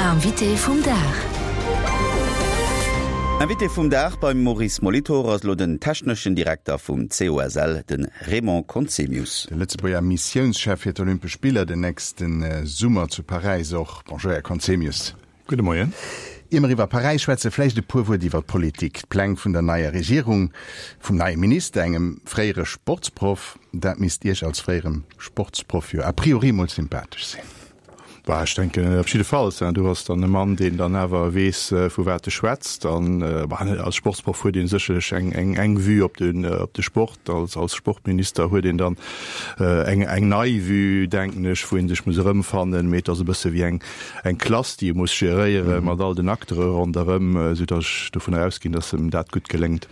Invité vum Dag. Invité vum Dag beim Maurice Molitor ass elo den techneschen Direkter vum COSL, de Raymond Conzemius. De Lëtzebuerger Missiounschef fir d'Olympesch Spiller den nächste Summer zu Paräis och. Bonjour Här Conzemius. Gudde Moien. Ier mer iwwer Paräis schwätzen, vläicht e puer Wuert iwwer d'Politik. D'Pläng vun der neier Regierung, vum neie Minister, engem fréiere Sportsproff, dat misst Iech als fréierem Sportsproff jo a priori mol sympathesch sinn. Bah, ech denken op jiddefalls. Du ass dann e Mann, deen dann awer weess, vu wat e schwätzt. An bah, als Sportsproff huet ee sécherlech eng, eng, eng Vue op den, op de Sport. Als, als Sportminister huet een dann eng, eng nei Vue, denken ech, wou ee sech muss erëmfannen. Mee et ass e bësse wéi eng, eng Klass, déi e muss geréiere mat all den Acteure ronderëm, soudatt ech dovunner ausginn, datt em dat gutt geléngt.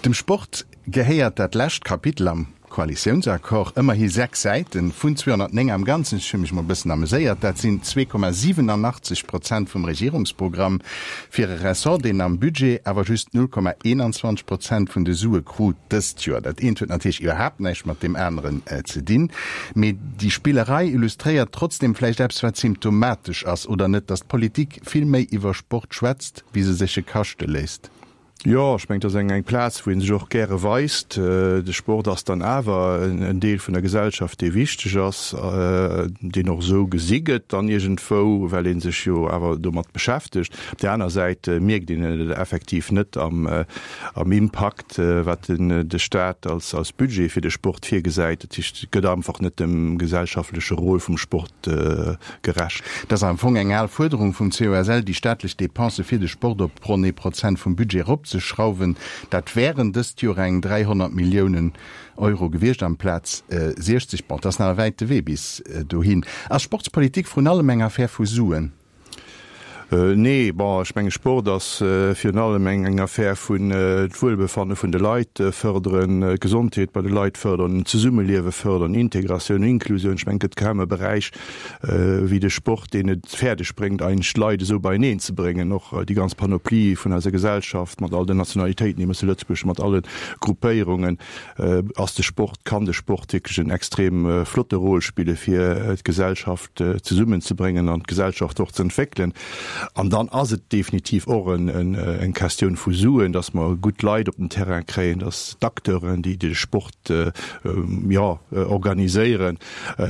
Dem Sport gehéiert dat lescht Kapitel am Koalitiounsaccord, ëmmerhi 6 Säiten, vun 209 am Ganzen, ech hu mech mol e bëssen ameséiert, dat sinn 2,87 Prozent vum Regierungsprogramm, fir e Ressort, deen am Budget awer just 0,21 Prozent vun de Sue krut dëst Joer. Dat eent huet natierlech iwwerhaapt näischt mat deem aneren ze dinn, mee déi Spillerei illustréiert trotzdeem vläicht eppes, wat symptomatesch ass, oder net, datt d'Politik vill méi iwwer Sport schwätzt, wéi se sech e kaschte léisst. Jo, ech mengen, et ass eng eng Plaz, wou ee sech och gäre weist. De Sport ass dann awer en Deel vun der Gesellschaft, dee wichteg ass, deen och esou gesi gëtt dann iergendwou, well ee sech jo awer domat beschäftegt. Op där aner Säit mierkt een et effektiv net am am Impakt, wat den de Staat als als Budget fir de Sport virgesäit. Dat heescht, et gëtt einfach net dem gesellschaftleche Rôle vum Sport gerecht. Et ass am Fong eng al Fuerderung vum COSL, déi staatlech Depensë fir de Sport op ronn ee Prozent vum Budget eropzeschrauwen. Dat wären dëst Joer eng 300 Milliounen Euro gewiescht amplaz 60. Bon, et ass nach e wäite Wee bis dohin. Ass Sportspolitik vrun allem eng Affär vu Suen? Nee, bon, ech menge Sport ass virun allem eng Affär vun d'Wuelbefanne vun de Leit fërderen, d'Gesondheet bei de Leit fërderen, d'Zesummeliewe fërderen, Integratioun, Inklusioun. Ech mengen, et gëtt kaum e Beräich wéi de Sport, deen et fäerdeg bréngt, eigentlech d'Leit esou beieneen ze bréngen, och déi ganz Panoplie vun eiser Gesellschaft mat all den Nationalitéiten, déi mer zu Lëtzebuerg hunn, mat alle Gruppéierungen, ass de Sport, kann de Sport wierklech en extrem flotte Rôle spille fir d'Gesellschaft. zesummenzebréngen an d'Gesellschaft och ze entwéckelen. An dann ass et definitiv och eng Questioun vu Suen, dass mer gutt Leit op den Terrain kréien, dass d'Acteuren, déi de Sport, jo, organiséieren,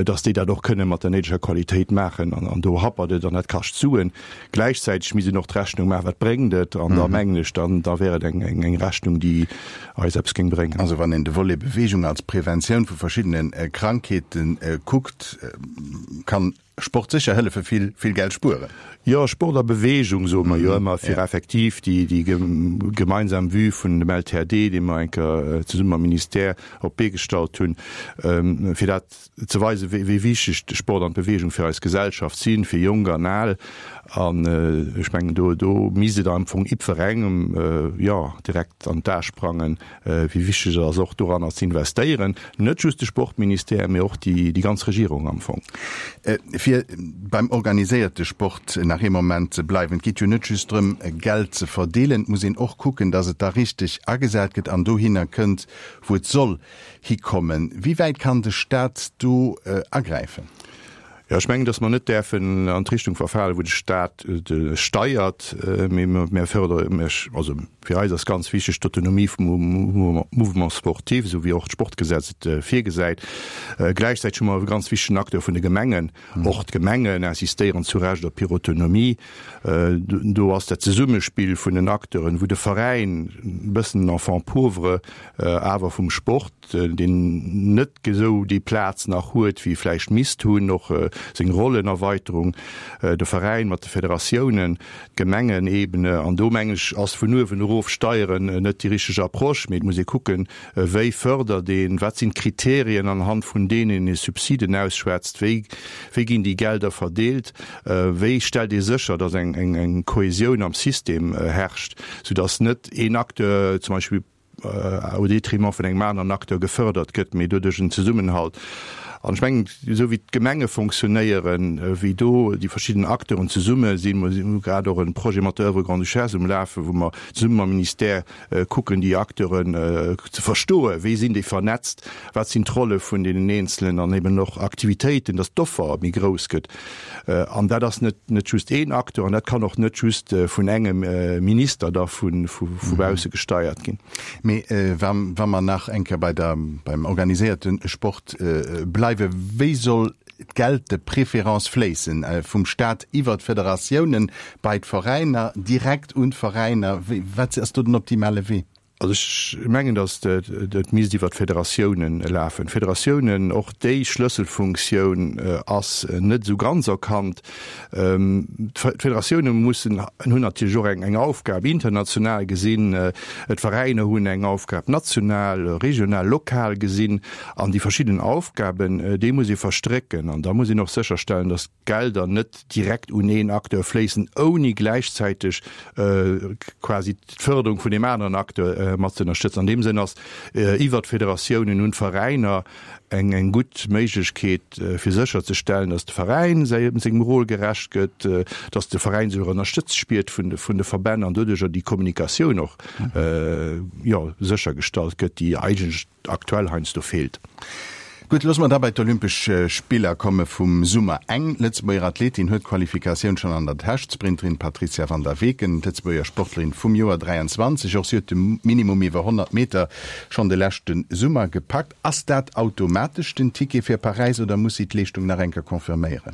dass déi dat och kënne mat der néideger Qualitéit maachen. An do happert et an dat kascht Suen. Gläichzäiteg misst een och d'Rechnung maachen, wat bréngt et? An da mengen ech, dann da wär et eng Rechnung, déi eis eppes géing bréngen. Also wann een de Volet Beweegung als Preventioun vu verschiddene Krankheete kuckt, kann Sport sécher hëllefe vill, vill Geld spueren. Jo, Sport a Beweegung soe mer jo ëmmer, fir effektiv déi gemeinsam Vue vun dem LTAD, dee mer eng Kéier zesumme mam Ministère op d'Bee gestallt hunn, fir dat ze weisen, wéi wichteg de Sport an d'Beweegung fir eis Gesellschaft sinn, fir Jonk an Al. An ech mengen, do, do misst et am Fong jiddwerengem, jo, direkt an d'A sprangen, wéi wichteg et ass, och doranner ze investéieren. Net just de Sportministère, mee och déi, déi ganz Regierung am Fong. Fir beim organiséierte Sport nach ee Moment ze bleiwen, Et geet jo net just drëm, Geld ze verdeelen, et muss een och kucken, datt et da richteg agesat gëtt an dohinner kënnt, wou et soll hikommen. Wéi wäit kann de Staat do agräifen? Jo, ech mengen, datt mer net däerfen an d'Richtung verfalen, wou de Staat steiert, mee mer fördere, also fir eis ass ganz wichteg d'Autonomie vum Mouvement sportif, esou wéi och d'Sportgesetz et virgesäit. Gläichzäiteg hu mer e ganz wichtegen Acteur vun de Gemengen. Och d'Gemengen insistéieren zu Recht op hir Autonomie. Do ass dat Zesummespill vun den Acteuren, wou de Veräin e bëssen den Enfant pauvre awer vum Sport, deen net esou déi Plaz nach huet, wéi e vläicht misst hunn, och seng Rollenerweiterung, de Veräin mat de Federatiounen, d'Gemengenebene. An do, mengen ech, ass vun uewen erof steieren net déi richteg Approche, mee et muss ee kucken, Wéi fërdert een? Wat sinn d'Kriterien, anhand vun deenen een Subsiden ausschwätzt? Wéi wéi ginn déi Gelder verdeelt? Wéi stellt ee sécher, datt eng eng Kohäsioun am System herrscht, soudatt net een Acteur zum Beispill au détriment vun engem aneren Acteur gefërdert gëtt, mee doduerch en Zesummenhalt? An ech mengen, esou wéi d'Gemenge fonctionnéieren, wéi do déi verschidden Acteuren zesumme sinn, mer hu grad och e Projet mat der Oeuvre Grande-Duchesse um Lafen, wou mer zesumme mam Ministère kucken, déi Acteuren ze verstoen, wéi sinn déi vernetzt, wat sinn d'Rolle vun deenen Eenzelen an eben och Aktivitéiten, dass d'Offer méi grouss gëtt. An dat ass net net just een Acteur an dat kann och net just vun engem Minister da vu vu bausse gesteiert ginn. Mee wa wa mer nach eng Kéier bei der beim organiséierte Sport bleiwen, wéi soll d'Geld de préférence fléissen? Vum Staat iwwer d'Federatiounen bei d'Veräiner, direkt un d'Veräiner? Wéi wat ass do den optimale Wee? Also ech mengen, datt et misst iwwer d'Federatiounen lafen. D'Federatiounen, och déi Schlësselfunktioun ass net esou ganz erkannt. D'Federatioune mussen, hunn natierlech och eng Aufgab international gesinn, d'Veräiner hunn eng Aufgab national, regional, lokal gesinn. An déi verschidden Aufgaben, déi muss ee verstrécken. An da muss een och sécherstellen, datt d'Gelder net direkt un een Acteur fléissen, ouni gläichzäiteg quasi d'Fërderung vun deem aneren Acteur mat ze ënnerstëtzen. An deem Sënn ass iwwert d'Federatiounen un d'Veräiner eng eng gutt Méiglechkeet, fir sécherzestellen, datt de Veräin sengem Rôle gerecht gëtt, datt de Veräin sech och ënnerstëtzt spiert vun de Verbänn an doduercher déi Kommunikatioun och, jo, séchergestallt gëtt, déi eigentlech aktuell heiansdo feelt. Gutt, loosse mer da bei d'Olympesch Spiller komme vum Summer. Eng Lëtzebuerger Athletin huet d'Qualifikatioun schonn an der Täsch, d'Sprinterin Patrizia van der Weken, d'Lëtzebuerger Sportlerin vum Joer 23. Och si huet de Minimum iwwer 100 Meter schonn de leschte Summer gepackt. Ass dat automatesch den Ticket fir Paräis oder muss si d'Leeschtung nach eng Kéier confirméieren?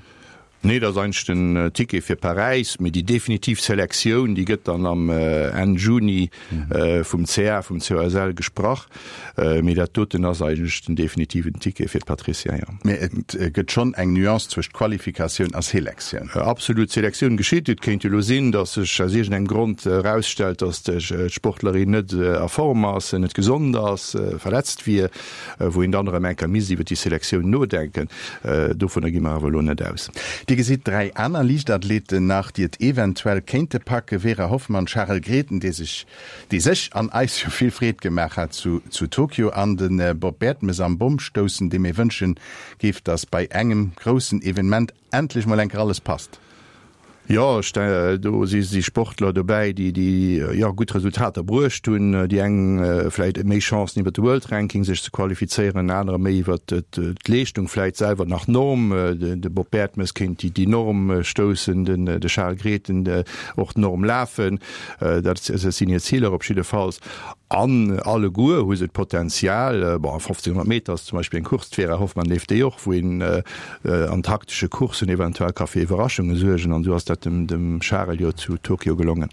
Nee, dat ass eigentlech den Ticket fir Paräis, mee déi definitiv Selektioun, déi gëtt dann am Enn Juni vum CA, vum COSL gesprach. Mee dat doten ass eigentlech den definitiven Ticket fir d'Patricia, jo. Mee et gëtt schonn eng Nuance zwëscht Qualifikatioun a Selektioun. Absolut, d'Selektioun geschitt. Et kéint jo elo sinn, datt sech aus iergendengem Grond erausstellt, datt d'Sportlerin net a Form ass, net gesond ass, verletzt wier. wou een dann erëm eng Kéier misst iwwer déi Selektioun nodenken. Dovunner gi mer awer elo net aus. Dir gesitt 3 aner Liichtathleten nach, déi et eventuell kéinte packen, Vera Hoffmann, Charel Grethen, dee sech, dee sech an eis jo vill Freed gemaach hat zu zu Tokio, an de Bob Bertemes am Bommstoussen, deem ee wënsche géif, datt bei engem groussen Evenement endlech mol eng Kéier alles passt. Jo, ech do si si Sportler dobäi, déi déi jo gutt Resultater bruecht hunn. Déi eng vläit méi Chancen iwwer de World Ranking sech ze qualifizéieren, anerer méi iwwer d'Leeschtung vläit selwer nach d'Norm. De Bob Bertemes kéint déi déi Norm stoussen, den de Charel Grethen och d'Norm lafen. Dat sinn hir Ziler op jiddefalls. An alleguer hu se d'Potenzial. Bon, 1500 Meter ass zum Beispill eng Course, d'Vera Hoffmann leeft déi och, wou een an taktesche Courssen eventuell ka fir Iwwerraschunge suergen an esou ass dat dem dem Charel jo zu Tokio gelongen.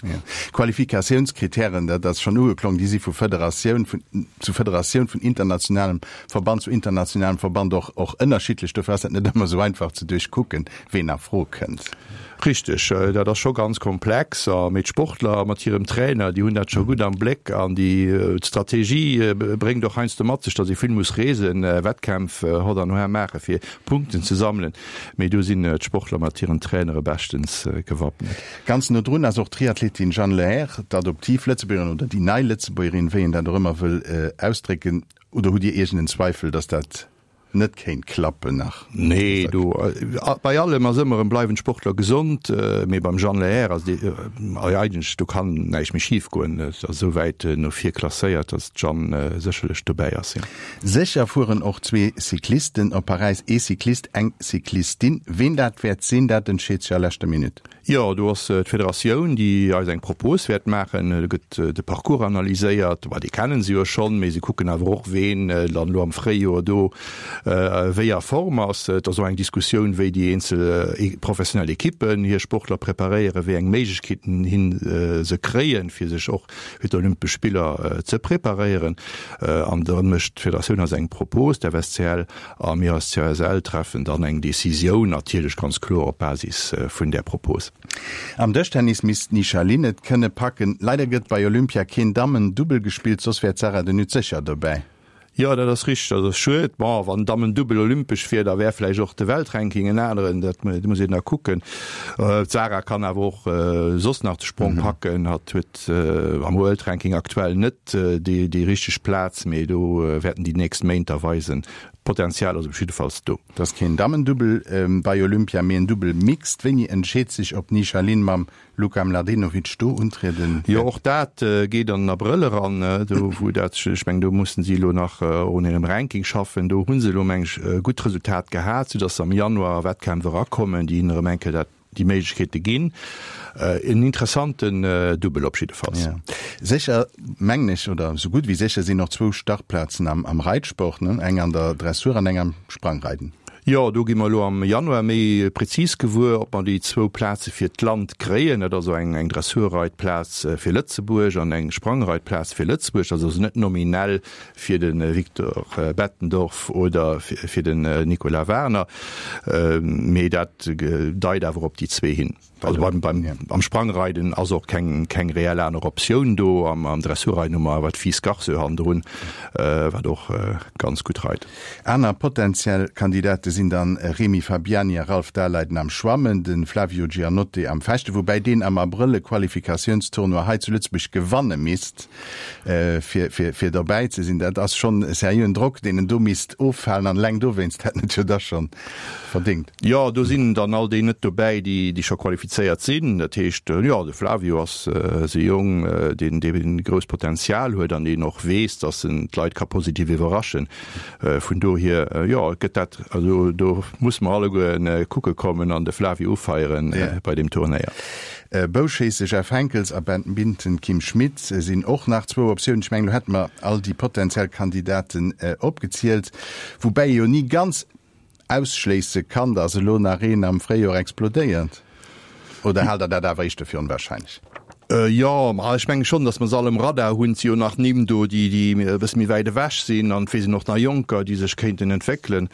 Qualifikatiounskritären, dat ass schonn ugeklong, déi si vu Federatioun vun zu Federatioun, vun internationalem Verband zu internationalem Verband och och ënnerschiddlech. Dofir ass dat net ëmmer esou einfach ze duerchkucken, ween a Fro kënnt. Richteg, dat ass scho ganz komplex. A mee d'Sportler mat hirem Trainer, déi hunn dat scho gutt am Bléck an déi d'Strategie bréngt och heiansdo mat sech, datt ee vill muss reesen, Wettkämpf hott an hoer maache fir Punkten ze sammelen. Mee do sinn d'Sportler mat hiren Trainere beschtens gewappnet. Ganz no drun ass och d'Triathletin Jeanne Lehair, d'Adoptiv-Lëtzebuergerin oder déi nei Lëtzebuergerin, wéi een dat och ëmmer wëll ausdrécken. Oder hutt Dir iergend en Zweifel, datt dat net kéint klappen nach? Nee, do bei allem ass ëmmer erëm, bleiwen d'Sportler gesond, mee beim Jeanne Lehair ass déi eigentlech, do kann näischt méi schif goen, et ass esou wäit no vir klasséiert, datt d'Jeanne sécherlech dobäi ass, jo. Sécher fueren och zwee Cyclisten op Paräis, ee Cyclist, eng Cyclistin. Ween dat wäert sinn, dat entscheet sech a leschter Minutt. Jo, do ass d'Federatioun, déi eis eng Propos wäert maachen. Do gëtt de Parcours analyséiert. Bah, dee kennen se jo schonn, mee se kucken awer och, ween dann elo am Fréijoer do wéi a Form ass. Et ass och eng Diskussioun, wéi déi eenzel professionell Ekippen hir Sportler preparéieren, wéi eng Méiglechkeeten hin se kréien, fir sech och fir d'Olympesch Spiller ze preparéieren. An da mécht d'Federatioun eis eng Propos, d'FSCL, A mir als CSL treffen dann eng Decisioun, natierlech ganz kloer op Basis vun där Propos. Am Dëschtennis misst d'Nisha Lin et kënne packen. Leider gëtt bei Olympia keen Dammen-Dubbel gespillt, soss wär d'Sarah de Nutte sécher dobäi. Jo, dat ass richteg, dat ass schued. Bon, wann Dammen-Dubbel olympesch wier, da wär vläicht och de Weltranking en aneren, dat muss een da kucken. D'Sarah kann awer och soss nach de Sprong packen. Hatt huet am Weltranking aktuell net déi richteg Plaz, mee do wäerten déi nächst Méint da weisen. D'Potenzial ass op jiddefalls do. Et ass keen Dammendubbel bei Olympia, mee en Dubbel Mixed. Wéini entscheet sech, ob d'Nisha Lin mam Luka Mladenovic do untrieden wäert? Jo, och dat geet an den Abrëll eran, do wou dat, ech mengen, do mussen si elo nach och un hirem Ranking schaffen. Do hu se elo, meng ech, e gutt Resultat gehat, soudatt se am Januar a Wettkämpf erakommen, déi hinnen erëm eng Kéier dat, déi Méiglechkeete ginn. En interessanten Dubbel op jiddefalls. Ja. Sécher, mengen ech, oder esou gutt wéi sécher sinn och zwou Startplazen am, am Reitsport, ne? Eng an der Dressur an eng am Sprangreiden. Jo, do gi mer elo am Januar méi prezis gewuer, ob mer déi zwou Plaze fir d'Land kréien. Dat ass also eng, eng Dressurreitplaz fir Lëtzebuerg an eng Sprangreitplaz fir Lëtzebuerg. Dat ass also net nominell fir de Victor Bettendorf oder fir den Nicolas Warner, mee dat deit awer op déi zwee hin. Also beim, beim, am Sprangreiden ass och keng, keng reell aner Optioun do. Am, am Dressurreiden hu mer awer d'Fils Garceux hannendrun, wat och ganz gutt reit. Aner potentiell Kandidate sinn dann Remy Fabiani a Ralph Daleiden am Schwammen, de Flavio Giannotte am Fechten, woubäi deen am Abrëll e Qualifikatiounstournoi hei zu Lëtzebuerg gewanne misst. fir, fir, fir dobäi ze sinn. Dat ass schonn e seriöen Drock, deen en do misst offalen an eleng dowéinst hätt en et jo da schonn verdéngt. Jo, do sinn dann all déi net dobäi, déi, déi scho qualifizéiert sinn. Dat heescht, jo, de Flavio ass e Jong, deen, dee grousst Potenzial huet an deen och weess, datt en d'Leit ka positiv iwwerraschen. Vun dohier, jo, gëtt dat, also do musse mer alleguer kucke kommen an de Flavio ufeieren bei deem Turnéier. Bouschéisse Jeff Henckels a Badminton Kim Schmitz sinn och nach zwou Optiounen. Ech mengen, elo hätte mer all déi potentiell Kandidaten opgezielt, woubäi ee jo ni ganz ausschléisse kann, dass elo nach een am Fréijoer explodéiert. Oder haalt Der dat awer éischter fir onwahrscheinlech? Jo, ma ech menge schonn, datt mer se all um Radar hunn. Et si jo nach Nimm do, déi déi e bësse méi wäit ewech sinn an et weess een och nach Jonker, déi sech kéinten entwéckelen.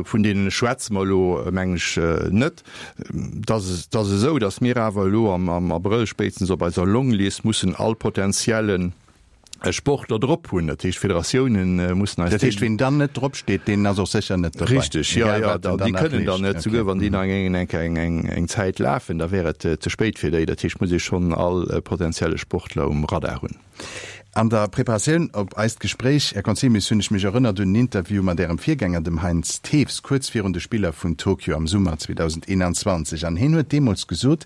Vun deenen schwätze mer elo, mengen ech, net. Et ass et ass esou, datt mir awer elo am am Abrëll spéitstens op eiser Longlist mussen all potentiellen Sportler drop hunn. Dat heescht, d'Federatiounen mussen eis Dat heescht, ween dann net drop steet, deen ass och sécher net dobäi. Richteg, jo, jo, da, déi kënnen dann net, souguer wann déi nach eng eng eng eng eng Zäit lafen, da wär et ze spéit fir déi. Dat heescht, muss ee schonn all potentielle Sportler um Radar hunn. An der Preparatioun op eist Gespréich, Här Conzemius, hunn ech mech erënnert un en Interview mat Ärem Virgänger, dem Heinz Thews, kuerz virun de Spiller vun Tokio am Summer 2021. An hien huet deemools gesot,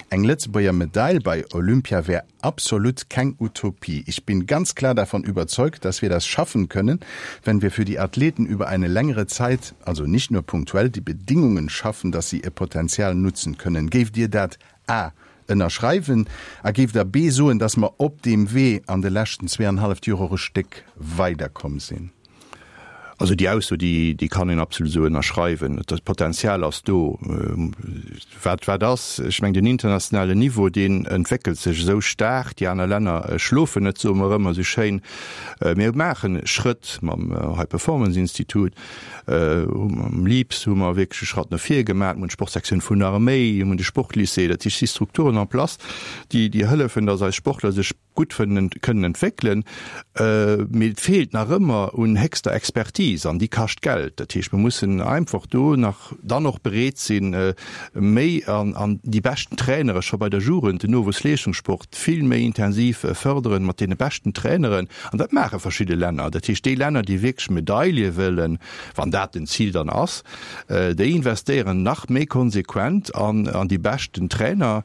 eng Lëtzebuerger Medail bei Olympia wär absolut keng Utopie. Ich bin ganz klar davon überzeugt, dass wir das schaffen können, wenn wir für die Athleten über eine längere Zeit, also nicht nur punktuell, die Bedingungen schaffen, dass sie ihr Potenzial nutzen können. Géift Dir dat a. Ënnerschreiwen a géift Der b. Soen, dass mer op deem Wee an de leschten zweeanhalleft Joer och e Stéck weiderkomm sinn? Also déi Ausso, déi, déi kann een absolut esou ënnerschreiwen. Dat Potenzial ass do. Wat, wat ass? Ech mengen, den internationalen Niveau, deen entwéckelt sech esou staark. Déi aner Länner schlofen net, soe mer ëmmer esou schéin. Mir maache Schrëtt mam High Performance Institut. Mam LIPS hu mer wierklech e Schratt no vir gemaach. Mir hunn d'Sportsektioun vun der Arméi, mir hunn de Sportlycée. Dat heescht, et si Strukturen en place, déi, déi hëllefen, datt eis Sportler sech gutt kënnen entwéckelen, mee et feelt nach ëmmer un héchster Expertise an déi kascht Geld. Dat heescht, mir mussen einfach do nach dann och bereet sinn, méi an déi beschten Trainere scho bei der Jugend, den Nowuessleeschtungssport vill méi intensiv fërderen mat deene beschten Traineren. An dat maache verschidde Länner. Dat heescht, déi Länner, déi wierklech Medaile wëllen, wann dat den Zil dann ass, déi investéieren nach méi konsequent an déi beschten Trainer,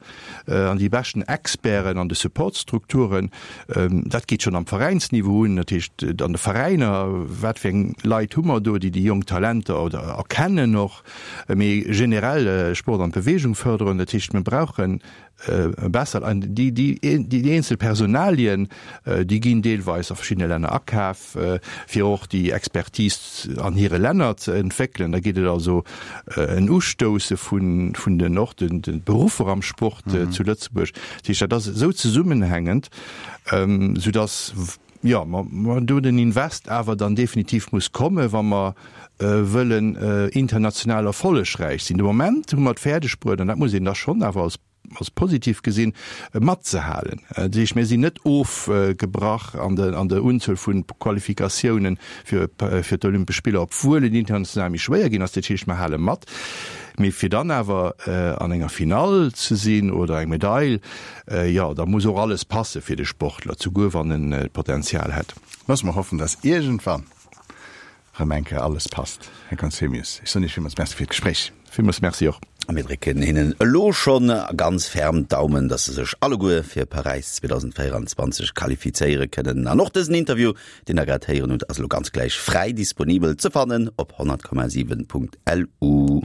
an déi beschten Experten an de Supportstrukturen. Dat geet schonn am Veräinsniveau un, dat heescht an de Veräiner, wat fir eng Leit hu mer do, déi déi jonk Talenter oder erkennen och, mee generell Sport an Beweegung fërderen. Dat heescht, mir brauche besser an déi déi eenzel Personalien, déi ginn deelweis a verschiddene Länner akaf. fir och déi Expertise an hire Länner ze entwéckelen. Da geet et also en Ustousse vun den och de Beruffer am Sport zu Lëtzebuerg. Dat heescht, dat ass esou zesummenhängend, soudass, jo, mer do den Invest awer dann definitiv muss kommen, wa mer wëllen international erfollegräich sinn. De Moment hu mer et fäerdeg bruet, an dat muss een da schonn awer als als positiv gesinn, matzehalen. Dat heescht, mir sinn net ofgebrach an der Unzuel vu Qualifikatiounen fir d'Olympesch Spiller, obwuel et international méi schwéier ginn ass. Dat heescht, mir hale mat. Mee fir dann awer an enger Finall ze sinn oder eng Medail, jo, da muss och alles passe fir de Sportler, souguer wann en d'Potenzial hätt. Loosse mer hoffen, dass iergendwann. Rëm eng Kéier alles passt. Här Conzemius, ech soen Iech villmools Merci fir d'Gespréich. Villmools Merci och. A mir drécken hinnen elo schonn ganz ferm d'Daumen, dass se sech alleguer fir Paräis 2024 qualifizéiere kënnen. An och dësen Interview, deen der grad héieren hutt, ass elo ganz gläich fräi disponibel ze fannen op 100,7.lu.